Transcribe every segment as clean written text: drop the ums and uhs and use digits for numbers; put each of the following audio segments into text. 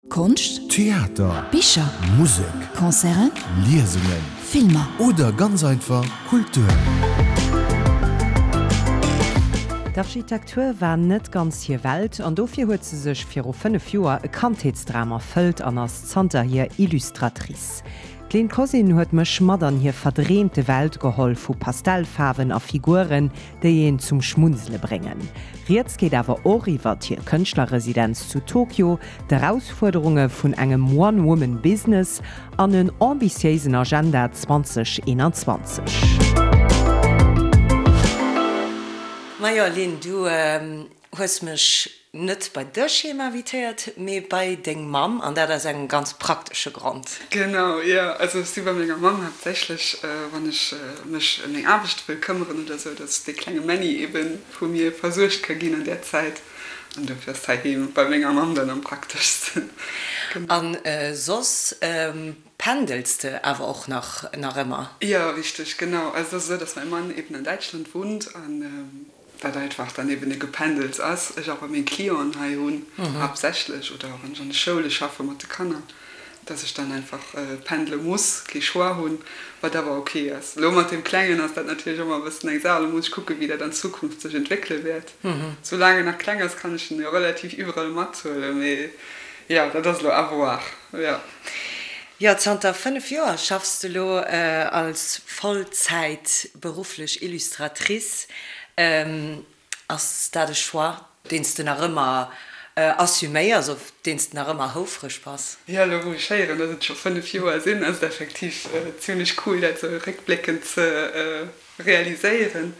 Konscht, Theater, Bicher, Musek, Concerten, Liesungen, Filmer. Oder ganz einfach Kultur. D'Architektur war net ganz hir Welt an dofir huet se sech viru 5 Joer e Kandheetsdram erfëllt an ass zanterhier Illustratrice. D'Lynn Cosyn huet mech mat an hir verdreemte Welt geholl vu Pastellfaarwen a Figuren, déi een zum Schmunzele bréngen. Rieds geet awer och iwwert hir Kënschtlerresidenz zu Tokio, d'Erausfuerderunge vun engem One-Woman-Business an en ambitiéisen Agenda 2021. Majo Lynn, du hues mech net bei dech heem invitéiert, mee bei deng Mamm, an dat aus engem ganz praktesche Grond. Genau, jo. Also ech si bei menger Mamm haaptsächlech, wann ech mech ëm meng Aarbecht wëll këmmeren oder sou, dass dee klenge Männi ebe vu mir versuergt ka ginn an där Zäit. An dofir ass heiheem bei menger Mamm dann am prakteschsten. Genau. An soss pendels de awer och nach nach ëmmer? Jo, richteg, genau. Also et ass esou, dass mäi Mann eben an Däitschland wunnt an dat einfach dann eben e Gependels ass. Ech awer meng Clienten hei hunn haaptsächlech oder wann ech an de Schoule schaffe mat de Kanner, dass ech dann einfach pendele muss, kee Choix hunn, wat awer ok ass. Elo mat deem Klengen ass dat natierlech ëmmer e bëssen eng Saach. Elo muss ech kucken, wéi dat an Zukunft sech entwéckele wäert. Soulaang en nach kleng ass, kann ech en jo relativ iwwerall mathuelen, mee jo, dat ass elo à voir, jo. Jo, zanter 5 Joer schaffs de lo als Vollzäit berufflech Illustratrice. Ass dat e Choix, deen s de nach ëmmer assuméiers, op deen s de nach ëmmer houfreg bass? Jo, elo wou ech héieren, dass et scho 5 Joer sinn, ass et effektiv zimlech cool, dat esou réckbléckend ze realiséieren,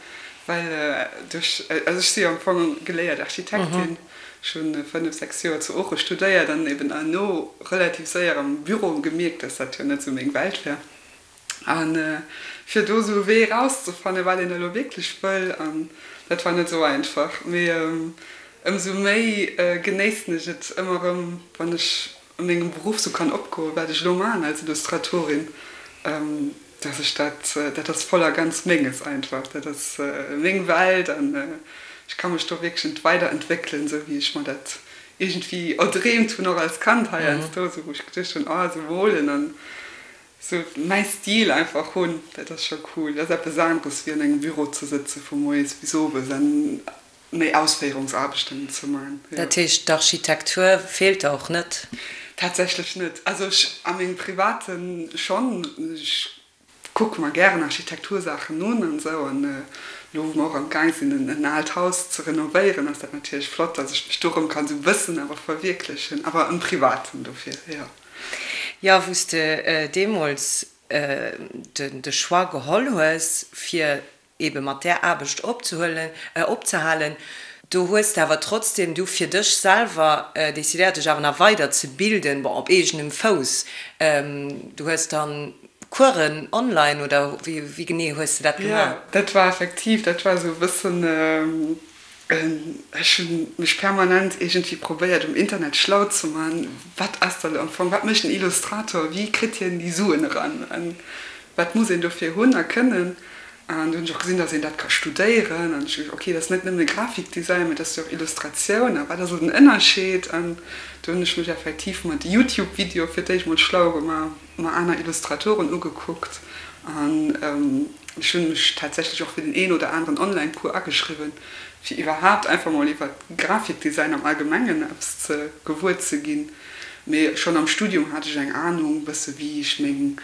well duerch, also ech si jo am Fong geléiert Architektin, ech hu 5, 6 Joer zu Ooche studéiert an eben herno relativ séier am Büro gemierkt, dass dat jo net esou meng Welt wär. A fir do esou e Wee erauszefannen, wat een elo wierklech wëll, an dat war net esou einfach. Mee ëmsou méi genéissen ech et ëmmer erëm, wann ech a mengem Beruff esou kann opgoen, wat ech elo maachen als Illustratorin, dass ech dat, dat ass voll a ganz Menges einfach, dat ass meng Welt an ech ka mech do wierklech weiderentwéckelen, esou wéi ech mer dat iergendwéi erdreemt hunn, och als Kand heiansdo, esou wou ech geduecht hunn, oh esou molen an Sou mäi Stil einfach hunn, dat ass scho cool. Dat ass eppes aneres wéi an engem Büro ze sëtze vu moies bis owes an méi Ausféierungsaarbechten ze man, jo. Dat heescht d'Architektur feelt der och net? Tatsächlech net. Also ech a mengem Private schonn. Ech kucke mer gären Architektursaachen un an esou an elo wou mer och am Gaang sinn en aalt Haus ze renovéieren ass dat natierlech flott, dass ech mech do erëm kann esou e bëssen awer verwierklechen, awer am Privaten dofir, jo. Jo, wou s de deemools de Choix geholl hues, fir ebe mat där Aarbecht opzehuelen, opzehalen, do hues de awer trotzdem du fir dech selwer decidéiert, dech awer nach weider ze bilden, bon, op eegenem Fouss. Du hues dann Coursen online, oder wéi genee hues de dat gemaach? Jo, dat war effektiv, dat war esou e bëssen Ech hunn mech permanent iergendwéi probéiert um Internet schlau ze man, wat ass dat am Fong, wat mécht en Illustrator, wéi kritt hien déi Suen eran an wat muss een dofir hunn a kënnen. An du hunn ech och gesinn, datt een dat ka studéieren an ech hu geduecht, ok, dat ass net nëmme Grafikdesign, mee dat ass jo och Illustratioun a wat ass elo den Ënnerscheed? An du hunn ech mech effektiv mat Youtube-Videoe fir d'éischt mol schlau gemaach. mer aner Illustratoren ugekuckt an ech hunn mech tatsächlech och fir den een oder aneren Online-Cours ageschriwwen, fir iwwerhaapt einfach mol iwwer Grafikdesign am Allgemengen eppes ze gewuer ze ginn. Mee schonn am Studium hat ech eng Anung bësse wéi ech meng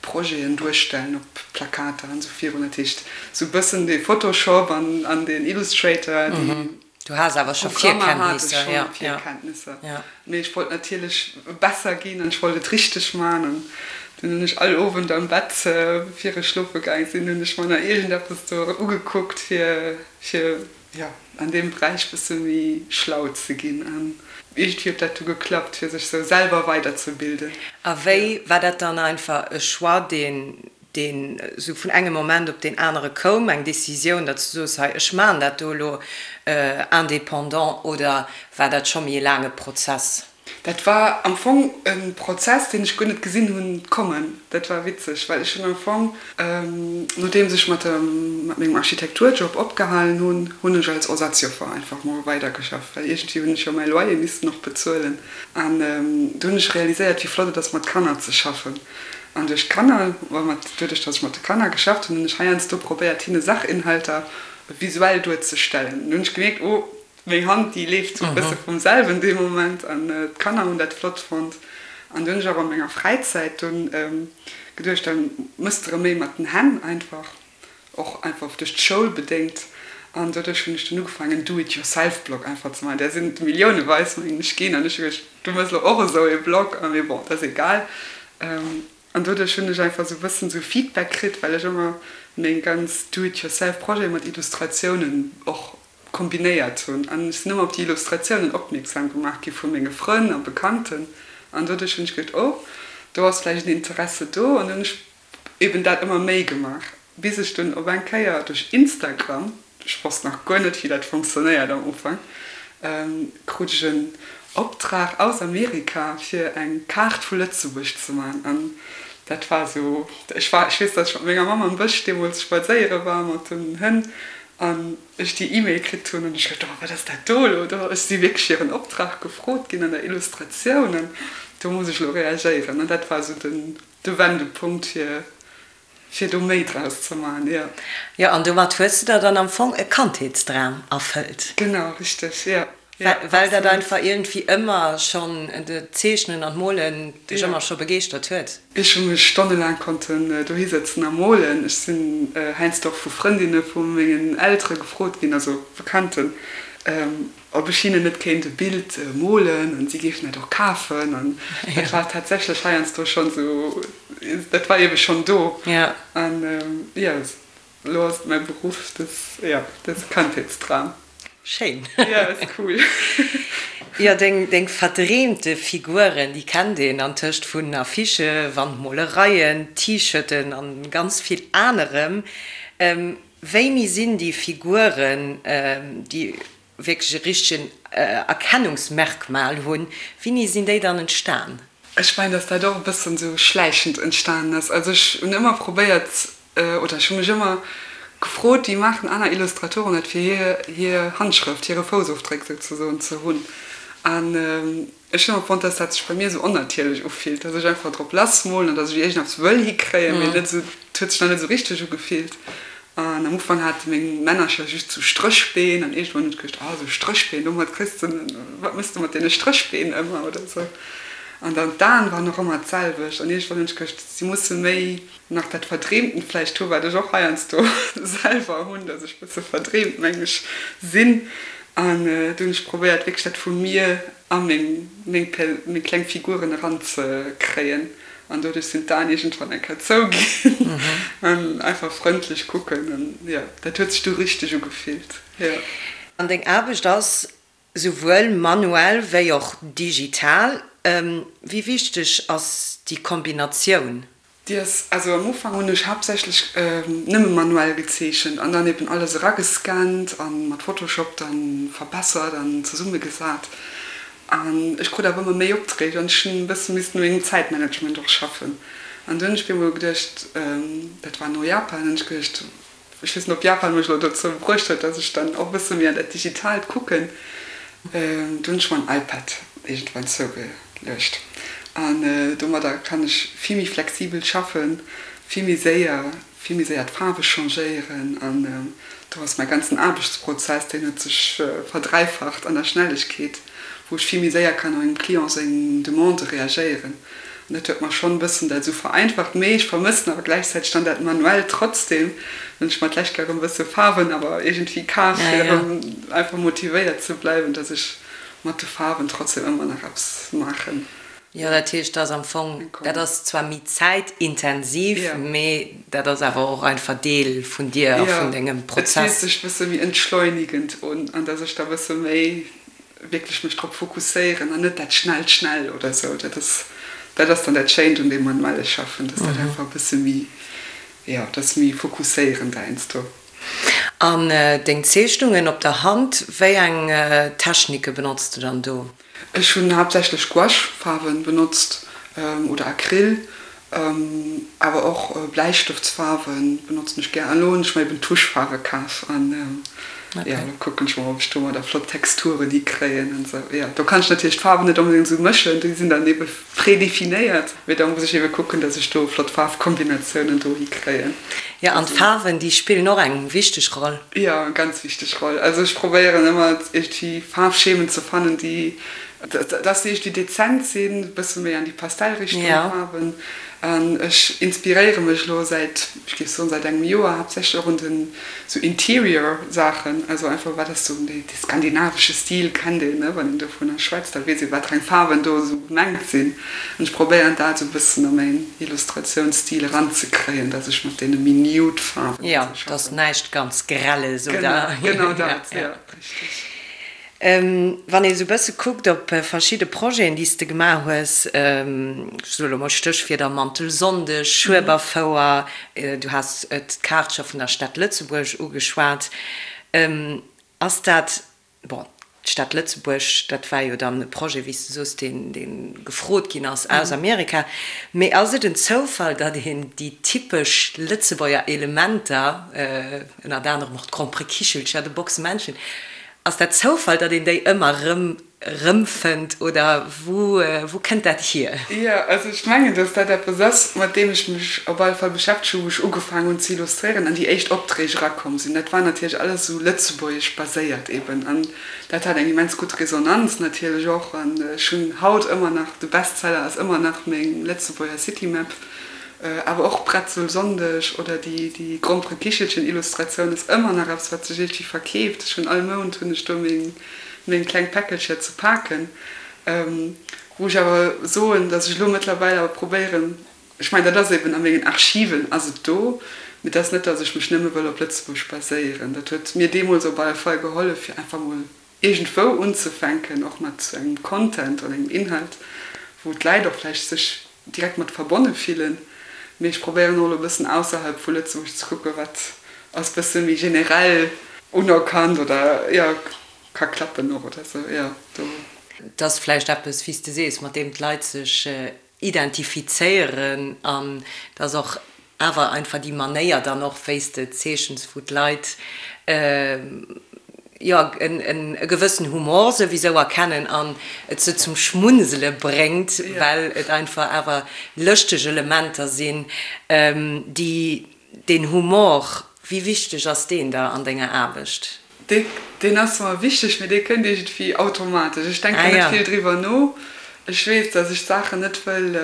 Projeten duerstellen op Plakater an esou virun. Dat heescht sou bëssen dee Photoshop an deen Illustrator, déi. Du has awer scho Virkenntnisser, jo. Virkenntnisser, mee ech wollt natierlech besser ginn an ech wollt et richteg man an dunn hunn ech all Owend am Bett, bevir ech schlofe gaang sinn, hunn ech mer nach iergendeppes do ugekuckt fir fir jo an deem Beräich bësse méi schlau ze ginn an iergendwéi huet dat du geklappt fir sech sou selwer weiderzebilden. A wéi war dat dann einfach e Choix deen deen esou vun engem Moment op deen anere koum, eng Décisioun, datt s du soos, hei ech maachen dat do elo indépendant, oder war dat scho méi e laange Prozess? Dat war am Fong e Prozess, deen ech guer net gesinn hunn kommen. Dat war witzeg, well ech hunn am Fong, nodeems ech mat mat mengem Architekturjob opgehalen hunn, hunn ech als Ersatzjoffer einfach mol weidergeschafft, well iergendwéi hunn ech jo mäi Loyer missten och bezuelen. An do hunn ech realiséiert, wéi flott et ass, mat Kanner ze schaffen. An duerch d'Kanner, mat doduerch, datt ech mat de Kanner geschafft hunn, hunn ech heiansdo probéiert, hinne Sachinhalter visuell duerzestellen. An do hunn ech gemierkt, oh, Meng Hand déi leeft sou e bësse vum selwen dee Moment an d'Kanner hunn dat flott fonnt. An du hunn ech awer an menger Fräizäit dunn geduecht, da mëss de rëm méi mat den Hänn einfach, och einfach duerch d'Schoul bedéngt. An doduerch hunn ech dunn ugefaangen en Do-it-yourself-Blog einfach ze maachen. Där sinn et milliouneweis mengen ech ginn an ech hu geduecht, du mëss elo och esou ee Blog a mee bon, dat ass egal. An doduerch hunn ech einfach sou e bëssen sou Feedback kritt, well ech ëmmer meng ganz Do-it-yourself-Projete mat Illustratiounen och kombinéiert hunn. An ech sinn ëmmer op déi Illustratiounen opmierksam gemaach gi vu menge Frënn a Bekannten. An doduerch hunn ech geduecht, oh, do ass vläicht en Interesse do. An hunn ech eben dat ëmmer méi gemaach, bis ech dunn op eng Kéier duerch Instagram, ech wosst nach guer net, wéi dat funktionéiert am Ufank, krut ech en Optrag aus Amerika, fir eng Kaart vu Lëtzebuerg ze maachen. An dat war esou, ech war, ech weess, datt ech mat menger Mamm am Bësch deemools spadséiere war mat den Hënn an ech déi E-Mail kritt hunn an ech geduecht, oh wat ass dat do elo do? Ech si wierklech fir en Optrag gefrot ginn an der Illustratioun an do muss ech elo reagéieren. An dat war esou den de Wendepunkt fir fir do méi draus ze maachen, jo. Jo, an domat hues de der dann am Fong e Kandheetsdram erfëllt. Genau, richteg, jo. Well dat einfach iergendwéi ëmmer schonn, d'Zeechnen an d'Molen dech ëmmer scho begeeschtert huet. Ech hu mech stonnelaang konnten dohi sëtzen a molen. Ech sinn heiansdo och vu Frëndinne vu mengen Eltere gefrot ginn, also Bekannten, ob ech hinnen net kéint e Bild molen an si géifen dat och kafen. An dat war tatsächlech heiansdo schonn esou, dat war ebe schonn do. An jo. Elo ass et mäi Beruff, dat, jo, dat ass e Kandheetsdram. Schéin. Jo, ass cool. Jo, deng, deng verdreemte Figuren, déi kennt een antëscht vun Affichë, Wandmolereien, T-Shirten an ganz vill anerem. Wéini sinn déi Figuren, déi wierklech e richtegen Erkennungsmerkmal hunn, wéini sinn déi dann entstan? Ech mengen, dass dat och e bëssen esou schläichend entstanen ass. Also ech hunn ëmmer probéiert, oder ech hu mech ëmmer gefrot, wéi maachen aner Illustratoren dat, fir hir hir Handschrëft, hire Foussofdréck souzesoen ze hunn. An ech hunn ëmmer fonnt, dass dat sech bei mir esou onnatierlech ufillt, dass ech einfach drop lassmolen an dass ech iergendeppes wëll hikréien, mee net esou, et huet sech nach net esou richteg ugefillt. An am Ufank hate meng Männercher just sou Stréchbeen an iergendwann hunn ech geduecht, ah sou Stréchbeen, domat kriss de, wat méchs de mat deene Stréchbeen ëmmer oder sou. An dann d'Aen waren och ëmmer d'selwecht an iergendwann hunn ech geduecht, si musse méi nach dat Verdreemtent vläicht hu wat ech och heiansdo selwer hunn, datt ech bësse verdreemt, meng ech, sinn. An du hunn ech probéiert wierklech dat vu mir a meng meng meng kleng Figuren eranzekréien. An doduerch sinn d'Aen iergendwann eng Kéier zou ginn an einfach frëndlech kucken. An jo, dat huet sech du richteg ugefillt, jo. An deng Aarbecht ass souwuel manuell wéi och digital. Wéi wichteg ass déi Kombinatioun? Déi ass, also am Ufank hunn ech haaptsächlech nëmme manuell gezeechent an dann eben alles eragescannt a mat Photoshop dann verbessert an zesummegesat. An ech krut awer ëmmer méi Opträg an ech hunn e bësse missten u mengem Zäitmanagement och schaffen. An du hunn ech mir emol geduecht, dat war no Japan, hunn ech geduecht, ech weess net, ob Japan mech elo dozou bruecht huet, dass ech dann och e bësse méi an dat Digitaalt kucken. Du hunn ech mer en iPad iergendwann zougeluecht an domadder kann ech vill méi flexibel schaffen, vill méi séier. vill méi séier d'Faarwe changéieren an do ass mäi ganzen Aarbechtsprozess, deen huet sech verdräifacht an der Schnellegkeet, wou ech vill méi séier kann op engem Client seng Demande reagéieren an dat huet mer schonn e bëssen dat esou vereinfacht. Mee ech vermëssen awer gläichzäiteg dann dat Manuellt trotzdem, well ech mer d'lescht Kéier erëm e bësse Faarwen awer iergendwéi kaf fir erëm einfach motivéiert ze bleiwen, dass ech mat de Faarwen trotzdem ëmmer nach eppes maachen. Jo, dat heescht, dat ass am Fong, dat ass zwar méi zäitintensiv, mee dat ass awer och einfach Deel vun dir a vun dengem Prozess. Jo, et fillt sech e bësse méi entschleunigend un an dass ech da e bësse méi wierklech mech drop fokusséieren an net dat schnellt schnell oder esou. Dat ass, dat ass dann dat Schéint un deem manuelle Schaffen, dass dat einfach e bësse méi, jo, dat ass méi fokusséierend heiansdo. An deng Zeechnungen op der Hand, wéi eng Technike benotz de dann do? Ech hunn haaptsächlech Gouache-Faarwen benotzt oder Acryl, awer och Bläistëftsfaarwen benotzen ech gär. An elo hunn ech mer eben Tuschfaarwe kaf an jo, elo kucken ech mol, ob ech domadder flott Texturen hikréien an esou. Jo, do kann ech natierlech d'Faarwen net onbedéngt esou mëschen, déi sinn dann ebe prédéfinéiert, mee da muss ech ebe kucken, dass ech do flott Faarfkombinatiounen do hikréien. Jo, an d'Faarwen, déi spillen och eng wichteg Roll. Jo, eng ganz wichteg Roll. Also ech probéieren ëmmer iergendwéi Faarfschemen ze fannen, déi, dass se iergendwéi dezent sinn, e bësse méi an déi Pastellrichtung Faarwen. An ech inspiréiere mech elo säit, ech géif soen, säit engem Joer haaptsächlech och un den sou Interior Saachen. Also einfach wat ass sou dee skandinavesche Stil kennt een, ne, wann een dovunner schwätzt, da weess ee wat fir eng Faarwen do esou gemengt sinn. An ech probéieren dat esou e bëssen a mäin Illustratiounsstil eranzekréien, dass ech mat deene méi nude Faarwen Jo, schaffen. dass näischt ganz Grelles, oder? Genau, genau dat, jo, richteg. Wann ee sou bësse kuckt op verschidde Projeten, déi s de gemaach hues, ech soe lo mol Stéchwierder, Mantelsonndeg, Schueberfouer, du has d'Kaart scho vun der Stad Lëtzebuerg ugeschwat, ass dat, bon, d'Stad Lëtzebuerg, dat war jo dann e Projet, wéi s de soos, deen, dee gefrot ginn ass aus Amerika, mee ass et en Zoufall, datt een déi typesch Lëtzebuerger Elementer, ënnert anerem och d'Gromperekichelcher, de Boxemännchen, Ass dat Zoufall, datt een déi ëmmer erëm erëmfënnt oder wou wou kënnt dat hier? Jo, also ech mengen, datt dat eppes ass, mat deem ech mech op alle Fall beschäftegt hu wou ech ugefaangen hunn ze illustréieren an déi éischt Opträg erakomm sinn. Dat war natierlech alles esou lëtzebuergesch baséiert eben an dat hat eng immens gutt Resonanz natierlech och. An ech hunn haut ëmmer nach, de Bestseller ass ëmmer nach meng Lëtzebuerger Citymap. Awer och Bretzelsonndeg oder déi Gromperekichelchen-Illustratioun ass ëmmer nach eppes, wat sech iergendwéi verkeeft. Ech hunn all Mount hunn ech do meng kleng Päckelcher ze paken. Wou ech awer soen, datt ech elo mëttlerweil awer probéieren, ech mengen, dat ass eben a mengen Archiven ass et do, mee et ass net, datt ech mech nëmme wëll op Lëtzebuerg baséieren. Dat huet mir deemools op alle Fall gehollef, fir einfach mol iergendwou unzefänken, och mat sou engem Content oder engem Inhalt, wou d'Läit och vläicht sech direkt mat verbonne fillen. Mee ech probéieren och elo e bëssen ausserhalb vu Lëtzebuerg ze kucken, wat ass bësse méi generell unerkannt oder, jo, ka klappen och oder sou, jo, do. Et ass vläicht eppes, wéi s de sees, mat deem d'Leit sech identifizéieren an et ass och awer einfach déi Manéier dann och, wéi s de zeechens, wou d'Leit, jo, e gewëssen Humor souwisou erkennen an et se zum Schmunzele bréngt, well et einfach awer lëschteg Elementer sinn, déi deen Humor, wéi wichteg ass deen der an denger Aarbecht? Deen ass mer wichteg, mee dee kënnt iergendwéi automatesch. Ech denken net vill driwwer no. Ech weess, datt ech d'Saachen net wëll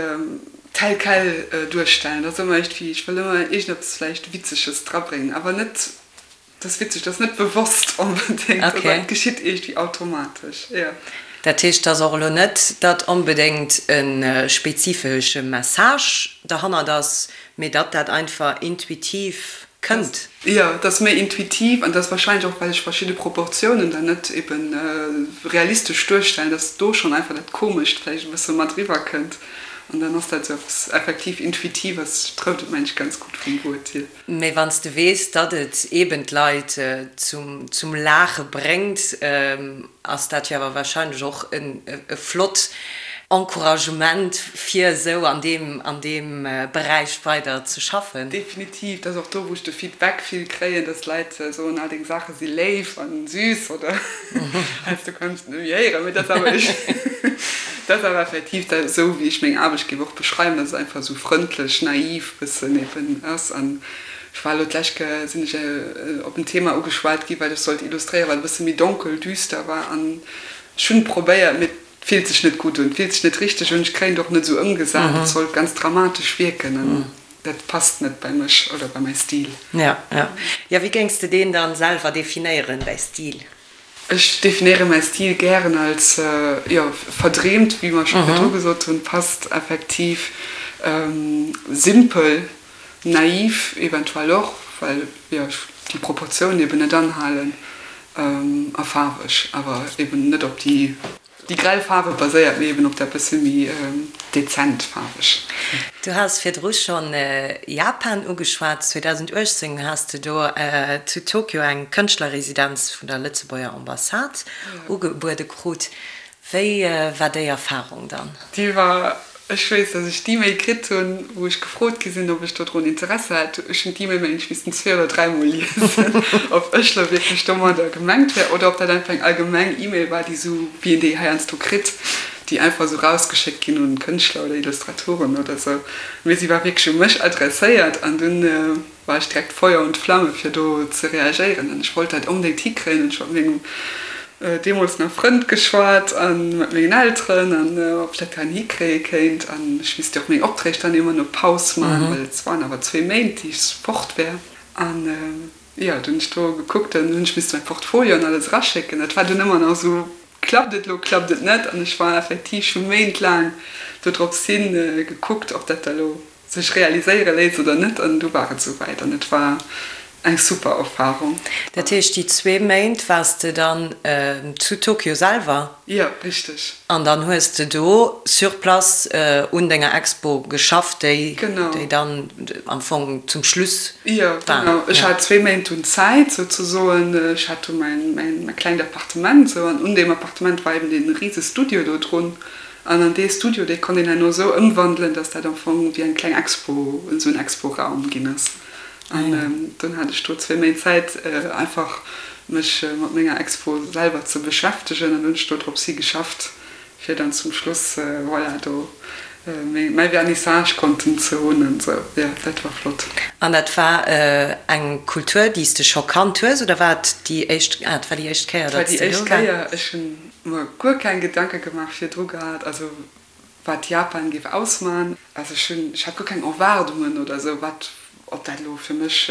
tel quel duerstellen. Dat ass ëmmer iergendwéi, ech wëll ëmmer iergendeppes vläicht Witzeges drabréngen, awer net, dat ass witzeg, dat ass net bewosst onbedéngt, dat geschitt iergendwéi automatesch, jo. Dat heescht, et ass och elo net, datt onbedéngt e spezifesche Message derhannert ass, mee datt dat einfach intuitiv kënnt. Jo, et ass méi intuitiv an et ass wahrscheinlech och, well ech verschidde Proportiounen dann net eben realistesch duerstellen, dass do schonn einfach dat Komescht vläicht e bësse mat eriwwer kënnt an dann ass dat esou eppes effektiv Intuitives, trëfft et mengen ech ganz gutt vum Wuert hier. Mee wann s de weess, datt et eben d'Leit zum Laache bréngt, ass dat jo awer wahrscheinlech och e flott Encouragement fir esou an deem an deem Beräich weider ze schaffen. Definitiv, dat ass och do wou ech de Feedback vill kréien, dass d'Leit soen, ah deng Saache si léif an süß oder heiansdo kann ech et net méi héieren, mee dat ass awer dat ass awer effektiv dat esou wéi ech meng Aarbecht géif och beschreiwen, dass et einfach esou frëndlech, naiv bëssen eben ass an ech war elo d'lescht Kéier sinn ech op en Thema ugeschwat gi wat ech sollt illustréieren, wat e bësse méi donkel, düster war an ech hunn probéiert, mee et fillt sech net gutt un, et fillt sech net richteg un, ech kréien et och net esou ëmgesat, et sollt ganz dramatesch wierken an dat passt net bei mech oder bei mäi Stil. Ja, ja. Jo, wéi géings de deen dann selwer definéieren, däi Stil? Ech definéiere mäi Stil gären als, jo, verdreemt, wéi mer scho virdru gesot hunn, passt effektiv, simpel, naiv eventuell och, well, jo, ech déi Proportiounen eben net anhalen, a faarweg, awer eben net op déi. Déi grell Faarwe baséiert méi eben op dat bësse méi dezent faarweg. Du has virdru schonn Japan ugeschwat. 2018 has de do zu Tokio eng Kënschtlerresidenz vun der Lëtzebuerger Ambassade ugebuede krut. Wéi war déi Erfarung dann? Déi war, ech weess, dass ech d'E-Mail kritt hunn, wou ech gefrot gi sinn, ob ech dodrun Interesse hätt. Ech hunn d'E-Mail, mengen ech, missten zwee oder dräimol liesen, ob ech lo wierklech domadder gemengt wär oder ob dat einfach eng allgemeng E-Mail war, déi esou, wéi een déi heiansdo kritt, déi einfach esou rausgeschéckt ginn un Kënschtler oder Illustratoren oder esou. Mee si war wierklech u mech adresséiert an dunn war ech direkt Feuer und Flamme fir do ze reagéieren an ech wollt dat onbedéngt hikréien an ech hu mat mengem deemools nach Frënd geschwat a mat mengen Elteren an ob ech dat dann hikréie kéint an ech misst jo och meng Opträg dann ëmmer no Paus man, well et waren awer zwee Méint déi ech fort wär an jo, dunn hunn ech do gekuckt, dann hunn ech misste mäi Portfolio an alles eraschécken. Dat war dunn ëmmer nach esou, klappt et elo, klappt et net an ech war effektiv scho méintlaang dodrops hin gekuckt, ob dat da lo sech realiséiere léisst oder net an du war et souwäit an et war eng super Erfahrung. Dat heescht déi zwee Méint waars de dann zu Tokio selwer? Jo, richteg. An dann hues de do sur place un denger Expo geschafft, déi déi dann am Fong zum Schluss war? Jo, genau. Ech hat zwee Méint dunn Zäit souzesoen. Ech hat do mäin mäin klengt Appartement sou an un deem Appartement war eben dee rise Studio do drun. An an dee Studio, dee konnt een herno esou ëmwandelen, dass dat am Fong wéi eng kleng Expo, esou en Expo-Raum ginn ass. An dunn hat ech do zwéi Méint Zäit, einfach mech mat menger Expo selwer ze beschäftegen. An hunn ech do drops hi geschafft, fir dann zum Schluss, voilà, do mäi Vernissage konnten ze hunn an esou. Jo, dat war flott. An dat war eng Kultur, déi s de scho kannt hues, oder war et déi éischt, ah, et war déi éischt Kéier, datt s de do waars? Et war déi éischt Kéier. Ech hunn mer guer keng Gedanke gemaach virdru gehat, also wat Japan géif ausman. Also ech hunn, ech hat guer keng Erwaardungen oder esou, wat, ob dat elo fir mech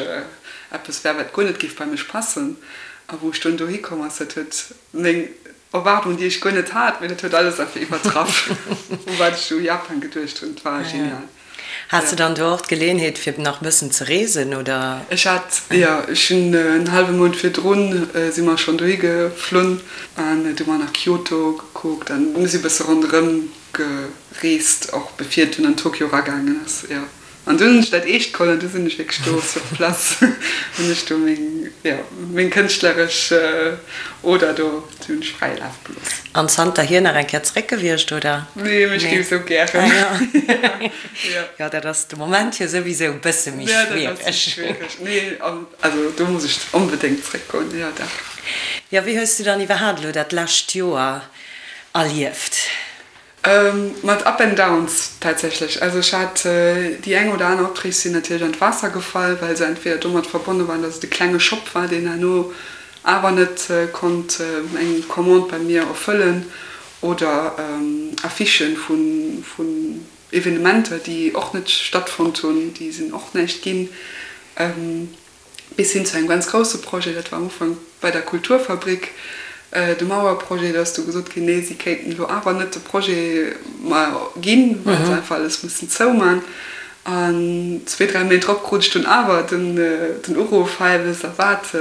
eppes wär, wat guer net géif bei mech passen. A wou ech dunn dohi komm ass, dat huet meng Erwaardungen, déi ech guer net hat, mee dat huet alles einfach iwwertraff, u wat ech u Japan geduecht hunn. Et war genial. Has de dann do och d'Geleeënheet fir nach e bëssen ze reesen, oder? Ech hat, jo, ech hunn en hallwe Mount virdrun si mer schonn dohi geflunn an du mer nach Kyoto gekuckt an mir si bësse ronderëm gereest, och bevir et dunn an Tokio eragaangen ass, jo. An dunn hunn ech dat eescht geholl an du sinn ech wierklech do sur place, hunn ech do meng, jo, meng kënschtleresch Oder do, déi hunn ech fräi Laf gelooss. An zanterhier nach eng Kéier zeréck gewiescht, oder? Nee, mee ech géif esou gären. Ah jo. Jo. Jo, dat ass de Moment jo souwisou e bësse méi schwiereg. Jo, dat ass méi schwiereg. Nee, also do muss ech onbedéngt zeréckgoen, jo dach. Jo, wéi hues du dann iwwerhaapt elo dat lescht Joer erlieft? Mat Up and Downs tatsächlech. Also ech hat déi eng oder aner Opträg sinn natierlech an d'Waasser gefall, well se entweder domat verbonne waren, datt et e klenge Shop war, deen herno awer net konnt eng Commande bei mir erfëllen oder Affichen vun Evenementer, déi och net stattfonnt hunn, déi sinn och näischt ginn. Bis hin zu engem ganz grousse Projet, dat war am Ufank bei der Kulturfabrik, de Mauerprojet, do ass du gesot ginn, nee, si kéinten elo awer net de Projet mer ginn, well se einfach alles mussen zouman. An zwee, dräi Méint drop krut ech dunn awer den Uruff, hei, wësst Der wat,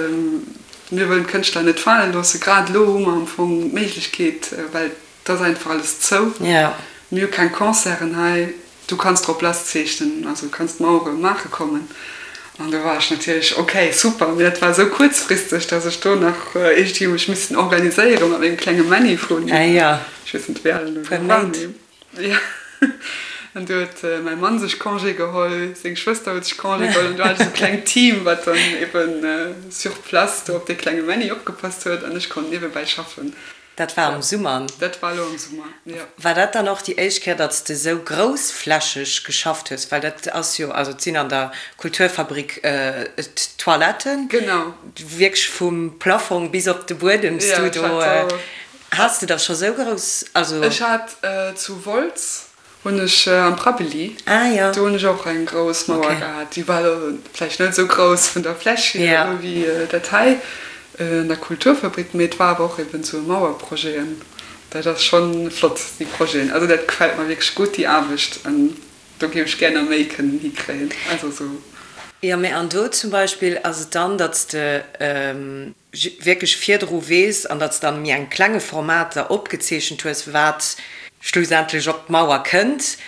mir wëllen d'Kënschtler net fale loossen, grad elo hu mer am Fong d'Méiglechkeet, well Et ass einfach alles zou. Mir hu keng Concerten hei. Du kanns drop lass zeechnen, also du kanns d'Mauere maache kommen. An do war ech natierlech, ok, super. Mee dat war esou kuerzfristeg, datt ech do nach iergendwéi mech missen organiséiere mat mengem klenge Männi vun, ech weess net, wéi al en elo war, mee jo. An du huet mäi Mann sech Congé geholl, seng Schwëster huet sech Congé geholl an du hat ech esou e klengt Team, wat dann eben sur place do op dee klenge Männi opgepasst huet an ech konnt niewebäi schaffen. Dat war am Summer. Dat war elo am Summer, jo. War dat dann och déi éischt Kéier, datt s de esou groussflächeg geschafft hues? Well dat ass jo, also et sinn an der Kulturfabrik d'Toiletten. Genau. Wierklech vum Plafong bis op de Buedem s du do. Has de da scho sou grouss, also. Ech hat zu Wolz Hunn ech am Prabbeli. Ah jo. Do hunn ech och eng grouss Mauer okay. gehat. Déi war elo vläicht net esou grouss vun der Fläch hier elo wéi dat hei an der Kulturfabrik, mee et war awer och eben esou e Mauerprojet an dat ass schonn flott, déi Projeten. Also dat gefält mer wierklech gutt, déi Aarbecht, an do géif ech gär nach méi kënnen hikréien. Also esou. Jo, mee an do zum Beispill ass et dann, datt s de. wierklech virdru weess an datt s de an méi engem klenge Format da opgezeechent hues, wat schlussendlech op d'Mauer kënnt.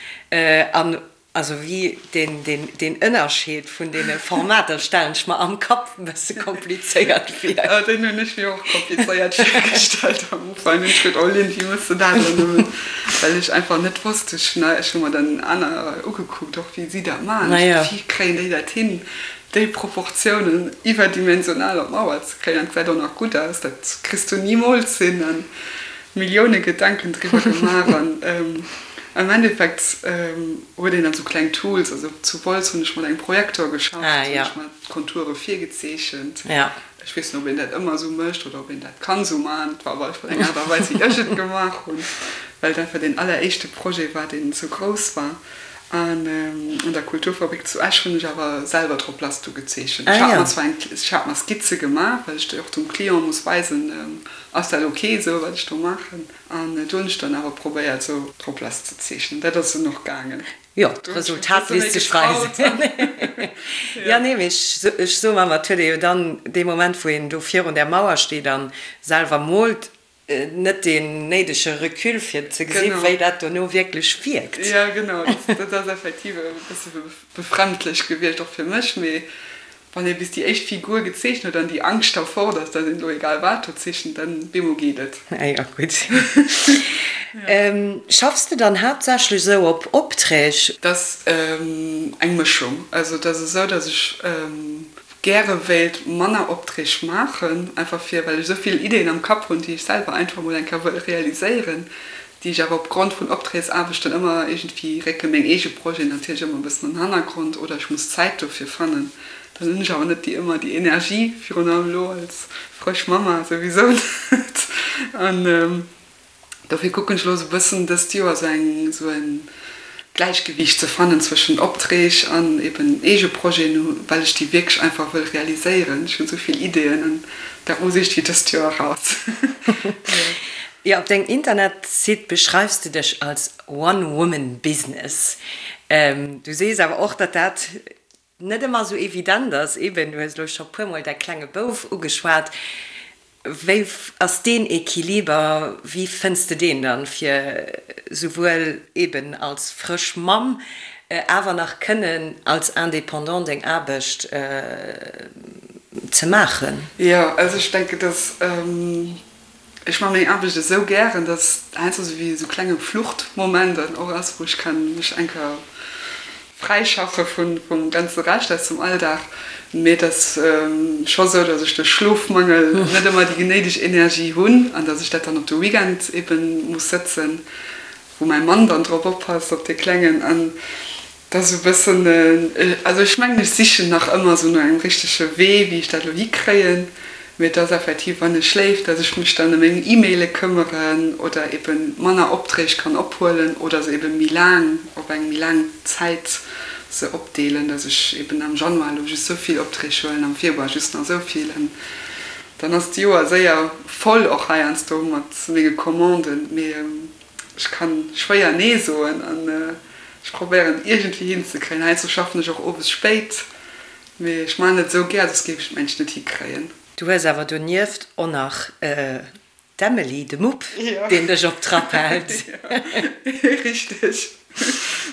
An. Also wéi deen, deen, deen Ënnerscheed vun deene Formater stellen ech mer am Kapp e bësse komplizéiert vir. Oh, deen hunn ech mir och komplizéiert virgestallt am Ufank. Hunn ech geduet, oh Lynn, wéi méchs de dat elo nëmmen? Well ech einfach net wosst, ech hunn, ech hu mer dann aner ugekuckt och, wéi si dat maachen. Ech dacht, wéi kréien déi dat hin, déi Proportiounen iwwerdimensional op d'Mauer ze kréien an et gesäit och nach gutt aus. Dat kriss du nimools hin. An Millioune Gedanken driwwer gemaach an am Endeffekt huet een dann sou kleng Tools, also zu Wolz hunn ech mat engem Projektor geschafft, hunn ech mer d'Konture virgezeechent. Ech weess net, ob een dat ëmmer sou mécht oder ob een dat kann sou maachen, et war op alle Fall eng Aart a Weis wéi ech et gemaach hunn, well et einfach deen alleréischte Projet war, deen sou grouss war. An an der Kulturfabrik zu Esch hunn ech awer selwer drop lass du gezeechent. Ech hat mer zwar eng, ech hat mer Skizze gemaach, well ech déi och dem Client muss weisen, Ass dat ok esou wat ech do maachen? An do hunn ech dann awer probéiert esou drop lass ze zeechnen. Dat ass dunn och gaangen. Jo, d'Resultat léisst sech weisen. Jo, nee, mee ech soe mer, et huet ee jo dann dee Moment, wou een do virun där Mauer steet a selwer moolt, net deen néidege Recul fir ze gesinn, wéi dat dono wierklech wierkt. Jo, genau, dat ass effektiv e bësse befremdlech gewiescht, och fir mech. Mee wann ee bis déi éischt Figur gezeechent huet an déi Angscht da fort ass, datt een elo egal wat do zeechent, dann bemol geet et. Ah jo, gutt. Schaffs de dann haaptsächlech esou op Opträg? Dat ass eng Mëschung. Also et ass esou, datt ech gäre wéilt manner Opträg maachen, einfach fir, well ech esou vill Ideeën am Kapp hunn, déi ech selwer einfach mol eng Kéier wëll realiséieren, déi ech awer opgrond vun Opträgsaarbechten ëmmer iergendwéi récke meng eege Projeten natierlech ëmmer e bëssen an den Hannergrond oder ech muss Zäit dofir fannen. Dann hunn ech awer net déi ëmmer déi Energie, virun allem elo als frësch Mamma souwisou net. An Dofir kucken ech elo sou bëssen dëst Joer sou eng sou en Gläichgewiicht ze fannen zwëschen Opträg an eben eege Projeten, well ech déi wierklech einfach wëll realiséieren. Ech hunn sou vill Ideeën an dat muss iergendwéi dëst Joer eraus. Jo, op dengem Internetsite beschreifs de dech als One Woman Business. Du sees awer och, datt dat net ëmmer esou evident ass. Eben, du hues elo scho puermol däi klenge Bouf ugeschwat. Wéi ass deen Equiliber, wéi fënns de deen dann, fir souwuel eben als frësch Mamm awer nach kënnen als Indépendant deng Aarbecht ze maachen? Jo, also ech denken, dass Ech man meng Aarbecht esou gären, dass heiansdo sou wéi esou klenge Fluchtmoment dann och ass, wou ech kann mech eng Kéier fräischaffe vun vum ganze Rescht aus dem Alldag. Mee et ass scho sou, dass ech duerch Schlofmangel net ëmmer déi genéideg Energie hunn an dass ech dat dann op de Weekend eben muss sëtzen, wou mäi Mann dann drop oppasst, op dee Klengen. An Dat ass e bëssen, also ech mengen, ech sichen nach ëmmer esou no engem richtege Wee, wéi ech dat elo hikréien. Mee et ass effektiv, wann e schléift, datt ech mech dann ëm meng E-Maile këmmeren oder ebe manner Opträg kann ophuelen oder se ebe méi laang, op eng méi laang Zäit se opdeelen, datt ech eben am Januar elo just esou vill Opträg huelen, am Februar just nach esou vill. An dann ass d'Joer séier voll, och heiansdo mat menge Commanden. Mee Ech kann schwéier nee soen an ech probéieren et iergendwéi hinzekréien. Heiansdo schaffen ech och owes spéit, mee ech maachen et esou gär, soss géif ech et mengt net hikréien. Du hues awer donieft och nach d'Emily, de Mupp, deen dech op Trapp hält. Jo, richteg.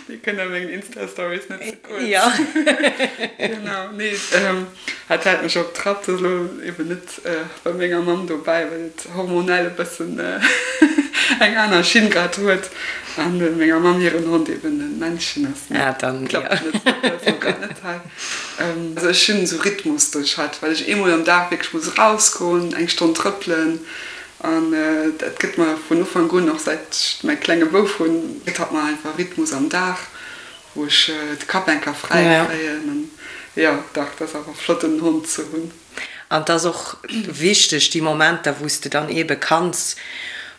Déi kënnt a mengen Insta-Stories net ze kuerz. Jo. Genau, nee, hat hält mech op Trapp. Dat ass elo eben net bei menger Mamm dobäi, well et hormonell e bëssen eng aner Schinn grad huet an menger Mamm hiren Hond eben e Männchen ass. Ah, dann, jo. Klappt net, dat ass elo grad net hei. Also ech hunn esou Rhythmus duerch hatt, well ech eemol am Dag wierklech muss erausgoen, eng Stonn trëppelen. An dat gëtt mer vun Ufank un, och säit ech mäi klenge Bouf hunn, gëtt hatt mer einfach Rhythmus am Dag, wou ech de Kapp eng Kéier fräi kréien. An jo, dach, dat ass awer flott en Hond ze hunn. An 't ass och wichteg, déi Momenter, wou s de dann eebe kanns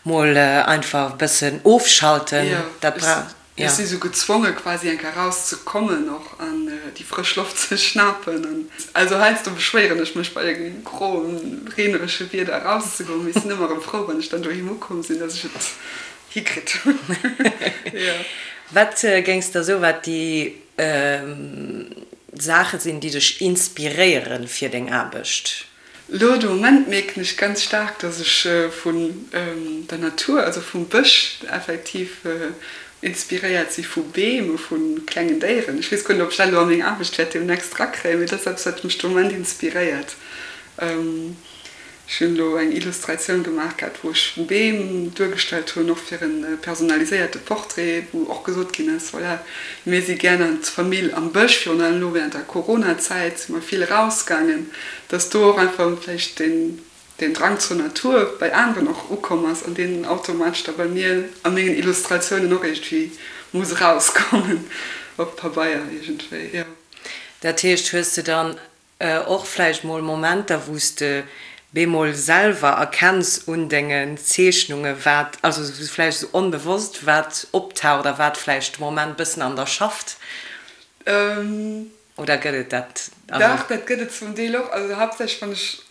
mol einfach e bëssen ofschalten, dat bra. Ech si sou gezwonge quasi eng Kéier raus ze kommen och an déi frësch Loft ze schnapen. An also heiansdo beschwéieren ech mech bei engem groen, reeneresche Wieder eraus ze goen, mee ech sinn ëmmer erëm frou wann ech dann doheem ukomm sinn, dass ech et hikritt hunn. Jo. Wat géings der soen, wat déi Saache sinn, déi dech inspiréiere fir deng Aarbecht? Lo de Moment mierken ech ganz staark, dass ech vun der Natur, also vum Bësch effektiv. inspiréiert si vu Beem, vu klengen Déieren. Ech weess guer net, ob ech dat elo a meng Aarbecht wäert deemnächst erakréien, mee dat ass eppes, wat mech de Moment inspiréiert. Ech hunn elo eng Illustratioun gemaach gehat, wou ech Beem duergestallt hunn, och fir e personaliséierte Portrait, wou och gesot ginn ass, voilà, mir si gär als Famill am Bësch, virun allem elo während der Corona-Zäit si mer vill erausgaangen, dass do och einfach vläicht deen deen Drang zur Natur bei aneren och ukomm ass an deen automatesch da bei mir a mengen Illustratiounen och iergendwéi muss erauskommen op Pabeier iergendwéi, jo. Dat heescht, hues de dann Och vläicht mol Momenter, wou s de bemol selwer erkenns un dengen Zeechnunge wat, also vläicht esou onbewosst, wat optaucht a wat vläicht de Moment bëssen an der schafft? Oder gëtt et dat? Dach, dat gëtt et zum Deel och. Also haaptsächlech wann ech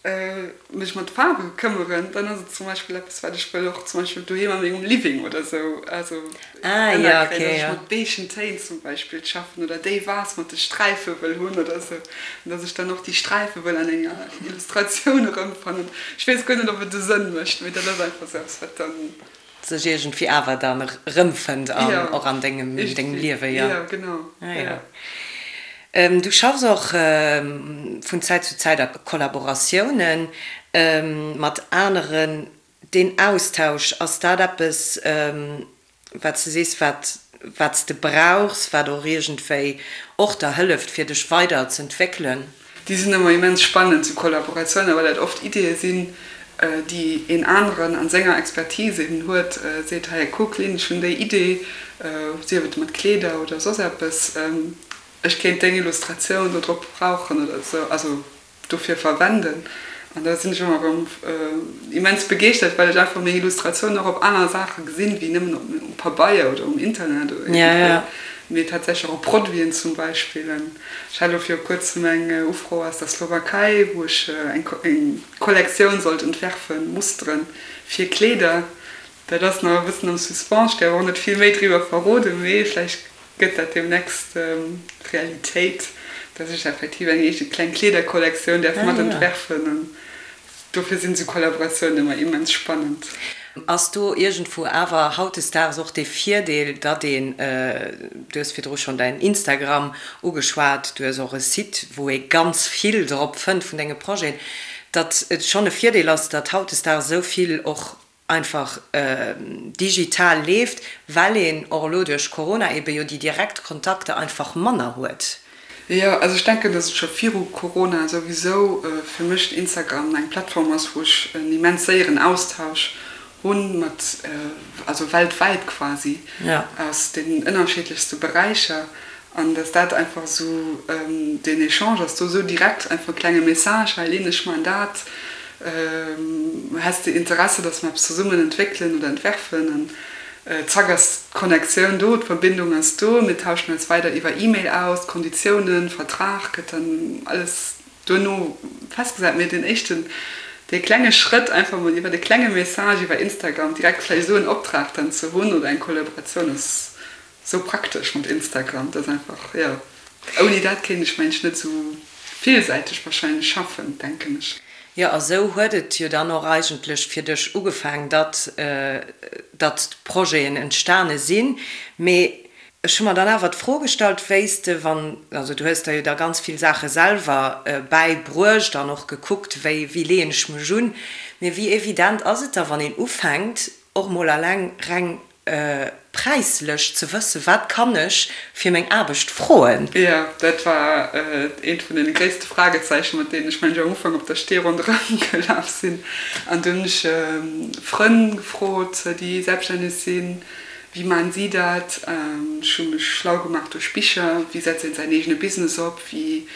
mech mat Faarwe këmmeren, dann ass et zum Beispill eppes, wat ech wëll och zum Beispill doheem a mengem Living oder sou, also ënnerkréien, dass ech mat beigen Téin zum Beispill schaffen oder déi Vase mat de Sträife wëll hunn oder sou, an dass ech dann och déi Sträife wëll an enger Illustratioun erëmfannen. Ech weess guer net, ob et e Sënn mécht, mee dat ass einfach sou eppes, wat dann. Sech iergendwéi awer dann erëmfënnt an och an dengem Liewe, jo. Jo, genau, jo. Du schaffs och vun Zäit zu Zäit a Kollaboratiounen mat aneren. Deen Austausch, ass dat eppes, wat s de sees, wat wat s de brauchs, wat och iergendwéi och der hëlleft, fir dech weider z'entwéckelen? Déi sinn ëmmer immens spannend, sou Kollaboratiounen, well dat oft Ideeë sinn, déi een aneren an senger Expertise eben huet, seet, hei kuck Lynn, ech hunn déi Idee, sief et mat Kleeder oder soss eppes, ech kéint deng Illustratioun do drop brauchen oder sou. Also dofir verwenden an da sinn ech ëmmer erëm immens begeeschtert, well ech einfach meng Illustratiounen och op aner Saache gesinn, wéi nëmmen op um Pabeier oder um Internet oder iergendwéi, mee tatsächlech och op Produiten zum Beispill. An ech hat elo viru kuerzem eng Ufro aus der Slowakei, wou ech eng Kollektioun sollt entwerfen, Musteren fir Kleeder. Dat ass nach e bëssen am Suspens, ech däerf och net vill méi driwwer verroden, mee vläicht Gëtt dat deemnächst Realitéit, dass ech effektiv eng eege kleng Kleederkollektioun däerf mat entwerfen? An dofir sinn esou Kollaboratiounen ëmmer immens spannend. Ass do iergendwou awer hautdesdaags och dee Virdeel, datt een, du hues virdru schonn däin Instagram ugeschwat, du hues och e Site, wou ee ganz vill drop fënnt vun denge Projeten, datt et schonn e Virdeel ass, datt hautdesdaags esou vill och einfach digital leeft, well een och elo duerch Corona ebe jo déi direkt Kontakter einfach manner huet. Jo, also ech denken, dass et scho viru Corona souwisou fir mech Instagram eng Plattform ass, wou ech en immens séieren Austausch hunn mat, also weltwäit quasi, aus den ënnerschiddlechste Beräicher. An dass dat einfach esou, deen Echange ass do esou direkt, einfach e klenge Message, hei Lynn, ech maachen dat, häss de Interesse, dass mer eppes zesummen entwéckelen oder entwerfen? An zack ass d'Connectioun do, d'Verbindung ass do, mir tauschen eis weider iwwer E-Mail aus, d'Konditiounen, Vertrag gëtt dann alles duerno festgesat. Mee deen éischten, dee klenge Schrëtt, einfach mol iwwer e klenge Message iwwer Instagram direkt vläicht esou en Optrag dann ze hunn oder eng Kollaboratioun ass Sou praktesch mat Instagram, dat ass einfach, jo, ouni dat kéint ech mensch net sou villsäiteg wahrscheinlech schaffen, denken ech. Jo, a sou huet et jo dann och eigentlech fir dech ugefaang, datt datt d'Projeten entstane sinn. Mee ech hu mer dann awer d'Fro gestallt, wéi s de, wann, also du hues der jo da ganz vill Saache selwer bäibruecht an och gekuckt, wéi wéi leeën ech mech un, mee wéi evident ass et da, wann een ufänkt, och mol alleng reng präislech ze wëssen, wat kann ech fir meng Aarbecht froen? Jo, dat war eent vun deene gréisste Fragezeichen, mat deenen ech mengen ech am Ufank op der Stee ronderëm gelaf sinn. An dunn hunn ech Frënn gefrot, déi selbststänneg sinn, wéi maachen si dat? Ech hu mech schlau gemaach duerch Bicher, wéi setzt een säin eegene Business op, wéi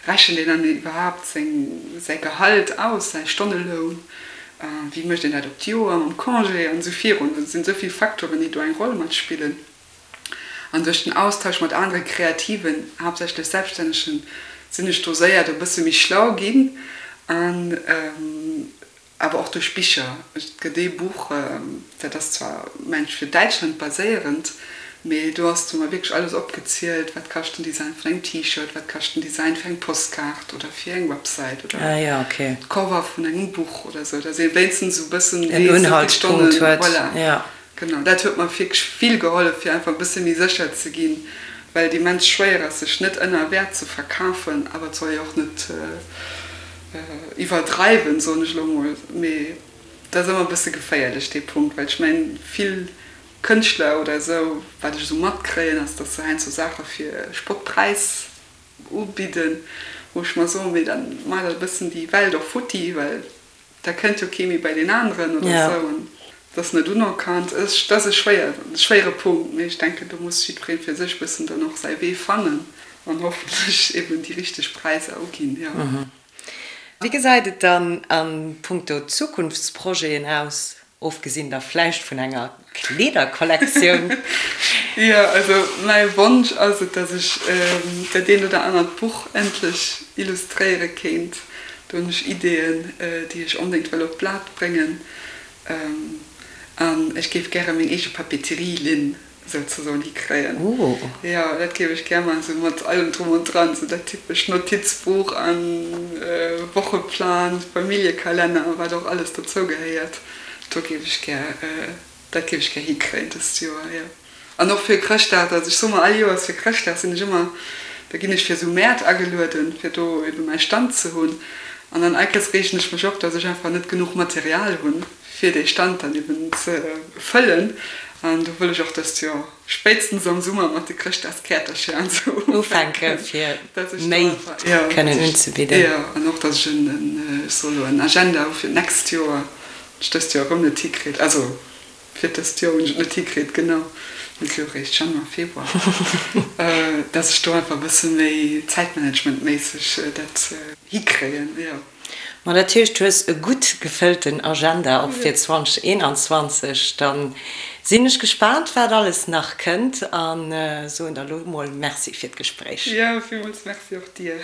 rechent een dann iwwerhaapt seng säi Gehalt aus, säi Stonneloun? Wéi mécht een dat op d'Joer mam Congé an esou virun. Et sinn esou vill Facteuren, déi do eng Roll matspillen. An duerch den Austausch mat anere Kreativen, haaptsächlech Selbststännegen, sinn ech do séier do e bësse méi schlau ginn. An awer och duerch Bicher. Et gëtt ee Buch, dat ass zwar, mengen ech, fir Däitschland baséierend, Mee do ass du mer wierklech alles opgezielt, wat kascht den Design vun engem T-Shirt, wat kascht den Design fir eng Postkaart oder fir eng Website oder d'Cover vun engem Buch oder sou, dass ee wéinstens esou e bëssen weess, esou vill Stonnen, voilà, Genau, dat huet mer wierklech vill gehollef, fir einfach e bësse méi sécher ze ginn, well et immens schwéier ass, sech net ënner Wäert ze verkafen, awer et soll ee och net iwwerdreiwen, soen ech elo mol. Mee dat ass ëmmer e bësse geféierlech, dee Punkt, well ech mengen, vill Kënschtler oder esou, wat ech esou matkréien, ass, datt se heiansdo Saache fir Spottpräis ubidden, wou ech mer soen, mee dann maacht der e bëssen déi Welt och futti, well da kënnt jo kee méi bei deen aneren oder esou an et ass net unerkannt. Dat ass e schwéier, e schwéiere Punkt, mee ech denken, do muss jiddweree fir sech e bëssen dann och säi Wee fannen an hoffentlech eben déi richteg Präisser uginn, jo. Wéi gesäit et dann a punkto Zukunftsprojeten aus? Ofgesinn da vläicht vun enger Kleederkollektioun. Jo, also mäi Wonsch ass et, dass ech dat eent oder anert Buch endlech illustréiere kéint. Do hunn ech Ideeën, déi ech onbedéngt wëll op d'Blat bréngen. An ech géif gäre meng eege Papeterie-Linn souzesoen hikréien. Jo, dat géif ech gär maachen, sou mat allem drum und dran, sou dat typescht Notizbuch an Wocheplan, Familljekalenner a wat och alles dozou gehéiert. Do géif ech gär, dat géif ech gär hikréien dëst Joer, jo. An och fir Chrëschtdag, also ech soe mer all Joers fir Chrëschtdag sinn ech ëmmer, da ginn ech fir sou Mäert agelueden, fir do ebe mäi Stand ze hunn. An dann all Kéiers reegen ech mech op, dass ech einfach net genuch Material hunn. fir dee Stand dann eben ze fëllen. An do wëll ech och dëst Joer spéitstens am Summer mat de Chrëschtdagskäertercher an esou ufänken, fir méi kënnen unzebidden. Jo, an och dass ech en, ech soe lo, en Agenda hu fir d'nächst Joer, wat ech dëst Joer erëm net hikritt, also fir dëst Joer hunn ech et net hikritt, genau, mir si jo eréischt Januar, Februar, dass ech do einfach e bësse méi zäitmanagementméisseg dat hikréien, jo. Ma dat heescht, du hues e gutt gefëllten Agenda och fir 2021. Da sinn ech gespaant, wat alles nach kënnt a soen der elo mol Merci fir d'Gespréich. Jo, villmools Merci och dir.